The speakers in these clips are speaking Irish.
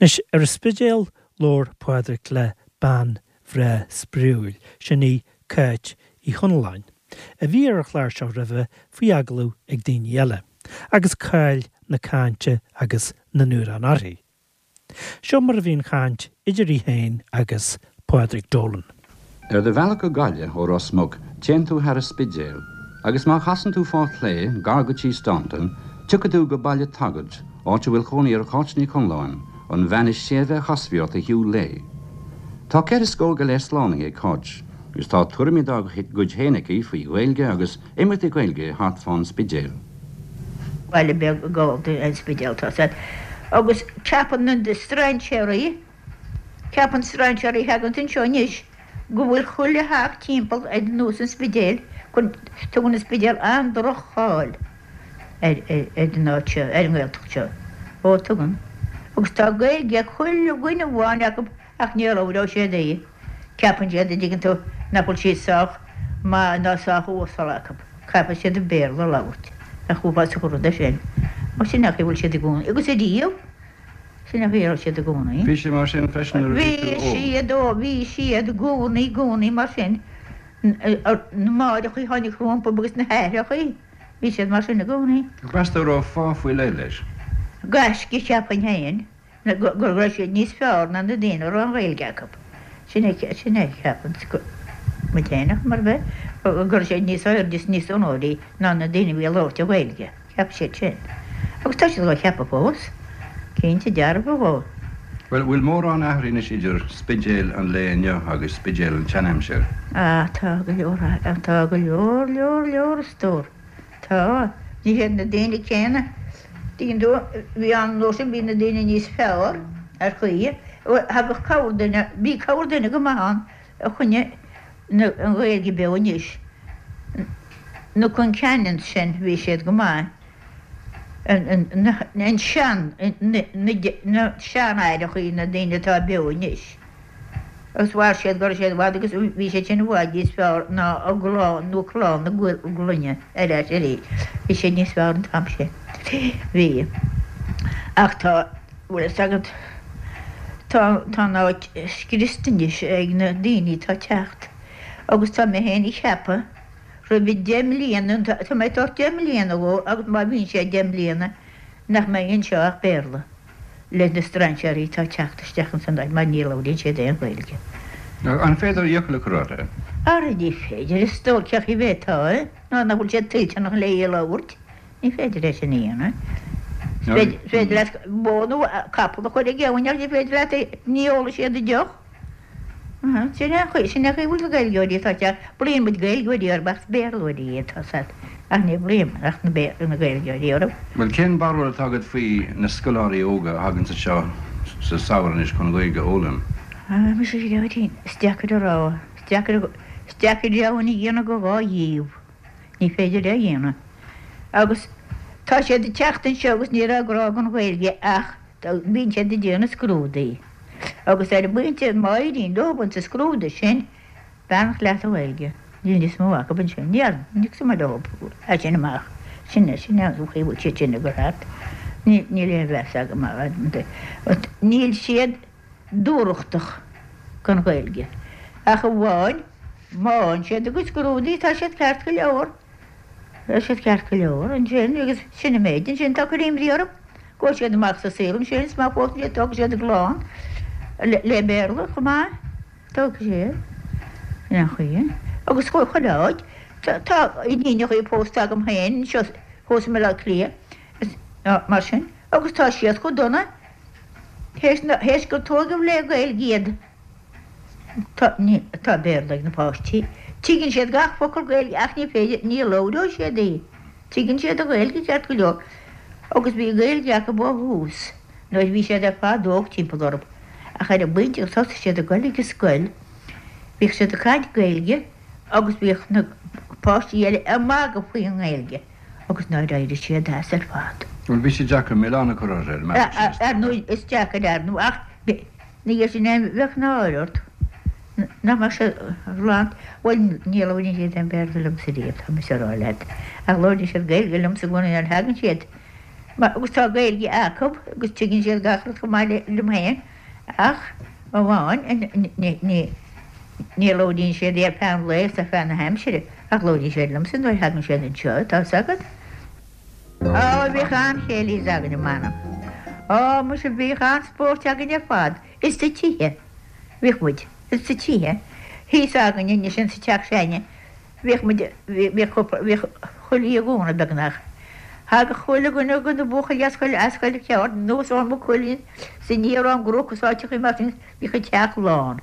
Anois, ar an Spidéal, labhair Pádraic le bean bhreá spraíúil, sin í Cáit Uí Chonalláin, a bhí ar an chlár seo roimhe faoi agallamh ag daoine eile, agus cáil na cainte agus na n-amhrán uirthi. Seo mar a bhí an chaint idir í féin agus Pádraig Dolan. Ar do bhealach go Gaillimh ó Ros Muc téann tú thar an Spidéal, agus má chasann tú fá chlé, gar go Tí Staunton, tiocfaidh tú go Baile Taggart, áit a bhfuil cónaí ar Cháit Ní Chonalláin, an bhean is séimhe a chasfaí ort a shiúl léi. Tá ceithre scór go leith slánaithe ag Cáit, agus tá tuairimí dá gcuid féin aici faoi Ghaeilge agus imeachtaí Gaeilge thart fán Spidéal. Baile beag Gallda an Spidéal tá sé agus ceapann na strainséaraí, ceapann strainséaraí a thaganns anseo anois go bhfuil chuile theach timpeall ar nós an Spidéil, tugann an Spidéal an-droch-cháil ar an áit seo, ar an nGaeltacht seo. Ó tugann. Agus tá Gaeilge ag chuile dhuine amháin acu ach ní labhróidh siad í. Ceapann siad, a dtuigeann tú, nach bhfuil sí sách maith ná sách uasal acu. Caithfidh siad an Béarla a labhairt. Nach uafásach an rud é sin? Ó sin é an chaoi a bhfuil siad i gcónaí. Agus ariamh, sin é an chaoi a raibh siad i gcónaí. Bhí sé mar sin freisin nuair a bhí tú óg? Bhí siad, ó bhí siad i gcónaí, i gcónaí mar sin. Na máithreachaí a tháinig rompu agus na haithreachaí, bhí siad mar sin i gcónaí. Meas tú an raibh fáth faoi leith leis? Gaisce, cheapfainn féin. go raibh siad níos fearr ná na daoine a raibh an Ghaeilge acu. Sin é, sin é a cheapann muid féin, ach mar bheith, go raibh siad níos airde is níos onóraí ná na daoine a bhí ag labhairt an Ghaeilge. Cheap siad sin. Agus tá siad dhá cheapadh fós. Cinnte dearfa dhó. Bhuel, bhfuil mórán athraithe anois idir Spidéal an lae inniu agus Spidéal an tseanaimsir? Ah, tá go leor, tá go leor, leor, leor, a stór. Tá. Ní hiad na daoine céanna. Tuigeann tú, bhí an uair sin, bhí na daoine níos fearr ar chaoi. Thagadh corrduine, bhí corrduine go maith ann a choinnigh an Ghaeilge beo anois. Na Concannons sin, bhí siad go maith. An sean, na seanaithreachaí, na daoine atá beo anois. Agus mhair siad go raibh siad i bhfad agus bhí siad sin i bhfad níos fearr ná a gclann nó clann na gclainne ar ais arís. Bhí siad níos fearr an t-am sin. Bhí. Ach tá, bhfuil fhios agat, tá, tá an áit scriosta anois ag na daoine atá ag teacht agus tá mé féin ag ceapadh roimh deich mbliana, tá mé ag tabhairt deich mbliana dhó agus má bhíonn sé deich mbliana nach mbeidh anseo ach Béarla. le na strainséirí atá ag teacht isteach ins an áit mar ní labhraíonn siad aon Ghaeilge. An féidir iachall a chur orthu? Ara ní féidir, a stór, cén chaoi a bhféadfá é, nuair nach bhfuil siad toilteanach le í a labhairt, ní féidir é sin a dhéanamh. Is féidir leat bó nó capall a chur ag abhainn ach ní féidir leat, ní ólfaidh siad a deoch. Sin é an chaoi, sin é an chaoi a bhfuil na Gaeilgeoirí atá ag teacht. Glaonn muid Gaeilgeoirí orthu ach is Béarlóirí iad, tá 's a't, ach ní ghlaoim ach na na Gaeilgeoirí orthu. Bhuel, cén barúil atá agat faoi na scoláirí óga a thaganns anseo sa samhradh anois chun Gaeilge a fhoghlaim? Ah, muise a Ghearóidín, is deacair a rá, is deacair, is deacair deamhan a dhéanamh de dhá dhíobh. Ní féidir é a dhéanamh. Agus tá siad ag teacht anseo agus ní raibh grá don Ghaeilge ach bíonn siad ag déanamh scrúdaí. Agus ar an bpointe má éiríonn leo sa scrúdú sin, beannacht leat a Ghaeilge, níl níos mó acu ansin. Ní ní cuma leo as sin amach. Sin é, sin é an chaoi a bhfuil siad sin ag dul thart. Níl aon mheas agam orthu. Níl siad dúthrachtach don Ghaeilge. Ach amháin má fhaigheann siad a gcuid scrúdaí tá siad ceart go leor. Tá siad ceart go leor ansin agus sin an méid ansin atá ag cur imní orm. Gabhfaidh siad amach sa saol ansin is má phósann siad tógfaidh siad a gclann le Béarla chomh maith. Tógfaidh siad. Sin an chaoi. Agus chuile áit. Tá iníonachaí pósta agam féin anseo thuas i mBaile Átha Cliath mar sin agus tá siad chomh dona théis gur tóigeadh le Gaeilge iad. Tá, tá Béarla ag na páistí. Tuigeann siad gach focal Gaeilge ach ní féidir, ní labhróidh siad í. Tuigeann siad an Ghaeilge ceart go leor agus bhí Gaeilge acu ó thús nuair a bhí siad ar fad óg timpeall orthu ach ar an bpointe gur thosaigh siad ag dul ag an scoil bhíodh siad ag caint Gaeilge agus bhíodh na páistí eile ag magadh faoin nGaeilge agus nár éirigh siad as ar fad. Bhuel bhí sé deacair milleán a chur orthu ar an mbealach sin. Ar ndóigh is deacair ar ndóigh ach Ina dhiaidh sin bheadh náire ort nach mbeadh sé glan. Bhuel, ní labhraíonn siad aon Bhéarla liomsa riamh, tá mise a rá leat. Ach labhraíonn siad Gaeilge liomsa i gcónaí nuair a thagann siad. Agus tá Gaeilge acu agus tuigeann siad gach rud chomh maith liom féin ach amháin ní labhraíonn siad í ar feadh an lae is ar feadh na haimsire ach labhraíonn siad liomsa nuair a thagann siad anseo, tá 'fhios agat. Á, bhíodh an-chéilís againne, m'anam. Á, muise, bhíodh an-spóirt againn ar fad, ins na tithe. Bhíodh muid, ins na tithe. Thíos againne anois ins an teach s'againne, Bhíodh muid, bhíodh cúpla, bhíodh chuile oíche Dhomhnaigh beagnach. Thagadh chuile dhuine de na buachaillí as chuile, as chuile cheard anuas ó Maigh Cuilinn is aniar ón gCnoc is áiteachaí mar sin, bhíodh an teach lán.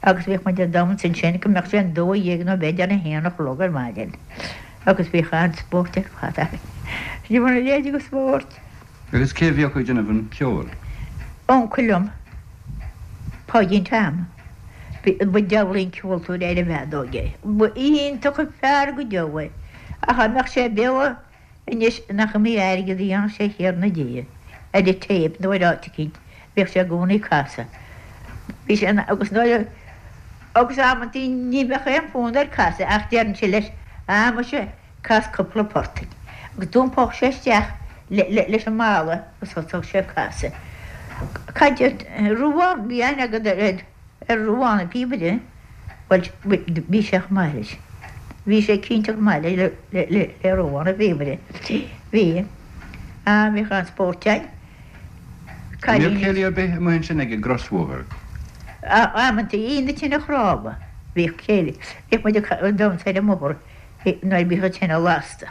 Agus bhíodh muid ag damhsa ansin go mbeadh sé an 12 nó b'fhéidir an haon a chlog ar maidin. Agus bhíodh an-spórt ar fad againn. Sin mar a leithéid de spórt. Agus cé a bhíodh ag déanamh an cheoil? Uncail liom, Páidín Tom. Ba diabhlaí an ceoltóir ar an bhfeadóg é. Ba iontach an fear go deo é. Ach dá mbeadh sé beo anois nach iomaí airgead a dhéanfadh sé a Thiarna Dia ar an téip nó ar áit eicínt. Bhíodh sé i gcónaí ag casadh. Bhí sé ina, agus nuair a, agus amantaí ní bheadh aon fhonn air casadh ach déarfainnse leis, ah muise, Cas cúpla port duinn. Agus d'iompódh sé isteach leis an mballa agus thosódh sé ag casadh. Cad é Ruadhán, bhí aithne agat ar Ruadhán an píobaire? Bhuel, bhí sé chomh maith leis. Bhí sé cinnte chomh maith le Ruadhán an píobaire. Bhí. Ah, bhíodh an-spórt againn. An mbíodh céilí ar bith amuigh ansin ag an gcrosbhóthar? Amantaí, Aoine tine chnámha, bhíodh céilí. Bhíodh muid ag damhsa ar an mbóthar. Nuair a bhíodh an tine lasta.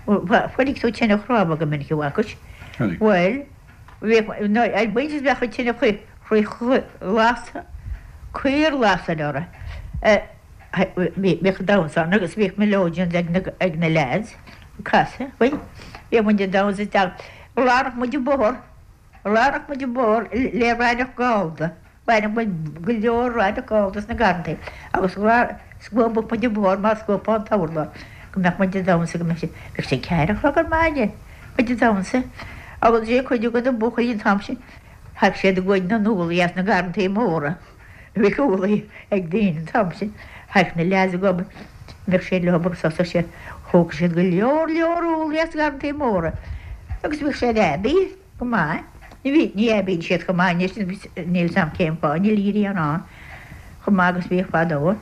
Chonaic tú tine chnámha go minic, an bhfacais? Chonaic. Bhuel, bhíodh, nuair ar bpointe bheadh an tine lasta, caor lasta uirthi. Bhíodh damhsa ann agus bhíodh melodeons ag na, ag na leaids ag casadh. Bhuel, bhíodh muid ag damhsa isteach. Ghlanfadh muid an bóthar, ghlanfadh muid an bóthar le raithneach gallda. Bhaineadh muid go leor raithneach gallda sna garrantaí agus scuabadh muid an bóthar mar scuabfá an t-urlár go mbeadh muid ag damhsa go mbeadh sé, bheadh sé ceathair a chlog ar maidin, muid ag damhsa agus sé cuid de na buachaillí an t-am sin, thagadh siad ag goid na n-úllaí as na garrantaí móra, bhíodh úllaí ag daoine an t-am sin, thagadh na leaids ag obair, bheadh siad leo agus thosódh siad, thógadh siad go leor leor úllaí as na garrantaí móra agus bhíodh siad aibí. Go maith. Ní bhí, ní aibíonn siad chomh maith anois, níl 'fhios a'm cén fáth, níl a ghrian ann chomh maith agus bhíodh fadó.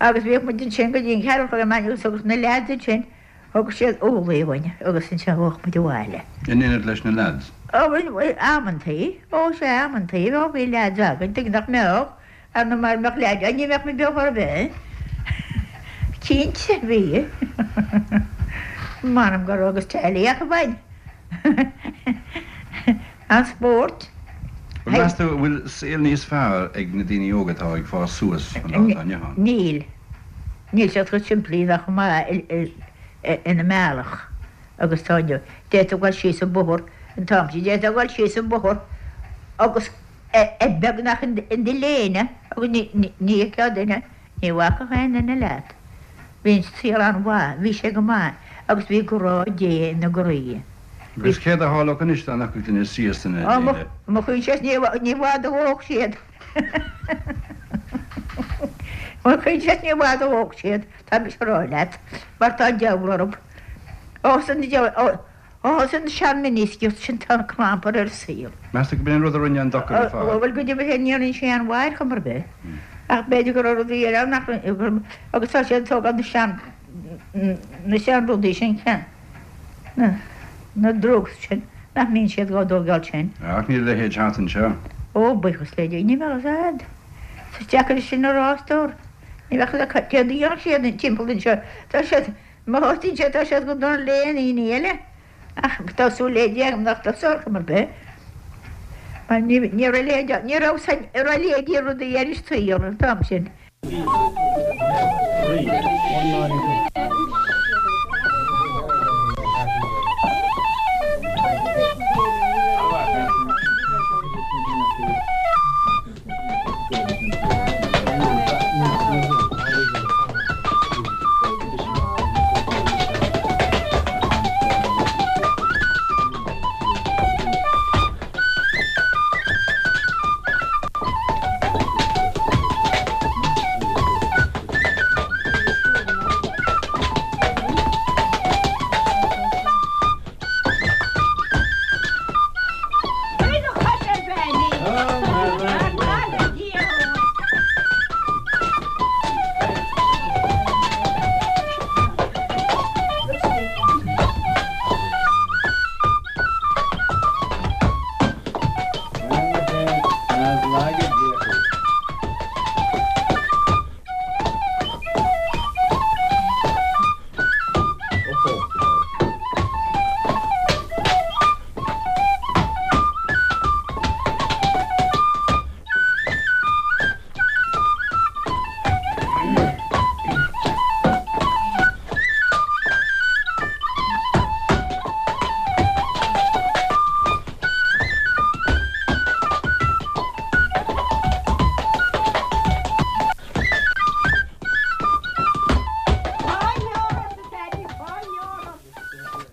Agus bhíodh muid ansin go dtí an ceathrú a chlog ar maidin agus thugadh na leaids ansin, thugadh siad úllaí dhúinn agus ansin chuaigh muid abhaile. In éineacht leis na leaids? Ó, bhuel, amantaí, ó sea, amantaí, ó bhí leaids againn, tuige nach mbeadh, Ar ndóigh mara mbeadh leaids againn ní bheadh muid beo chor ar bith. Cinnte, bhí. M'anam go raibh agus teaghlaigh acu againn. An spórt. Bhuel, meas tú an bhfuil saol níos fearr ag na daoine óga atá ag fás suas an lá atá inniu ann? Níl. Níl siad chomh simplí ná chomh maith ina mbealach agus atá inniu. D'fhéadfá dul síos an bóthar an t-am sin, d'fhéadfá dul síos an bóthar agus beagnach in do léine agus ní fheicfeá duine, ní bhacfadh aon duine leat. Bhí an saol an-mhaith, bhí sé go maith agus bhí grá Dé ina gcroí. Agus céard a tharlódh anois dá ndeachadh duine síos ina léine? Mo choinsias, ní i bhfad a dhódh siad. Mo choinsias, ní i bhfad a dhódh siad, tá mise a rá leat, mar tá an diabhal orthu. Ó, san diabhal, Ó thosaigh an sean-miniskirt sin tá an clampar ar an saol. Meas tú gurb in an rud a rinne an dochar ar fad? Bhuel, go deimhin ní rinne sé aon mhaith ar chuma ar bith. Ach b'fhéidir go raibh rudaí eile ann nach raibh, agus tá siad ag tógáil na sean, na sean-rudaí sin, na, na drugs sin, nach mbíonn siad dhá dtógáil sin. Ach níl a leithéid thart anseo. Ó, buíochas le Dia, ní bheadh a fhios a'd. Is deacair sin a rá, a stór. Ní bheadh a fhios a'd céard a dhéanfadh siad timpeall anseo. Tá siad. Mo thosaíonn tá siad go dona le aon aoinne eile, ach tá súil le Dia agam nach dtosóidh ar chuma ar bith, mar ní raibh a leithéid ann, ní raibh san, raibh a leithéidí rudaí ar an saol an t-am sin. Laga Dia thú.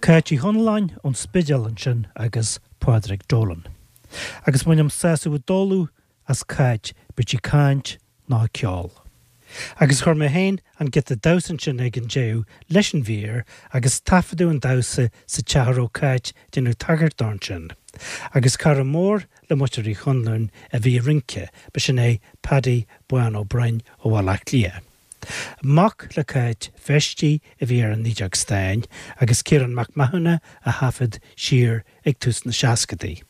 Cáit Uí Chonalláin ón Spidéal ansin agus Pádraig Dolan. Agus bainim sásamh i dtólamh as Cáit, bíodh sí ag caint nó ag ceol. Agus chuir mé féin an giota damhsa ansin ag an deireadh leis an mhír agus taifeadadh an damhsa sa teach a raibh Cáit ag déanamh tagairt dó ansin. Agus cara mór le muintir Uí Chonluain a bhí ag rince, b'shin é Paddy Bán Ó Broin ó Bhaile Átha Cliath. Mac le Cáit Feistí a bhí ar an nideog stáin agus Ciarán Mac Mathúna a thaifead siar ag tús na seascadaí.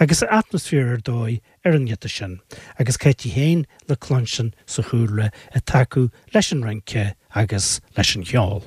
Agus atmaisféar ar dóigh ar an ngiota sin, agus Cáit í féin le cluinstin sa chúlra ag tacú leis an rince agus leis an cheol.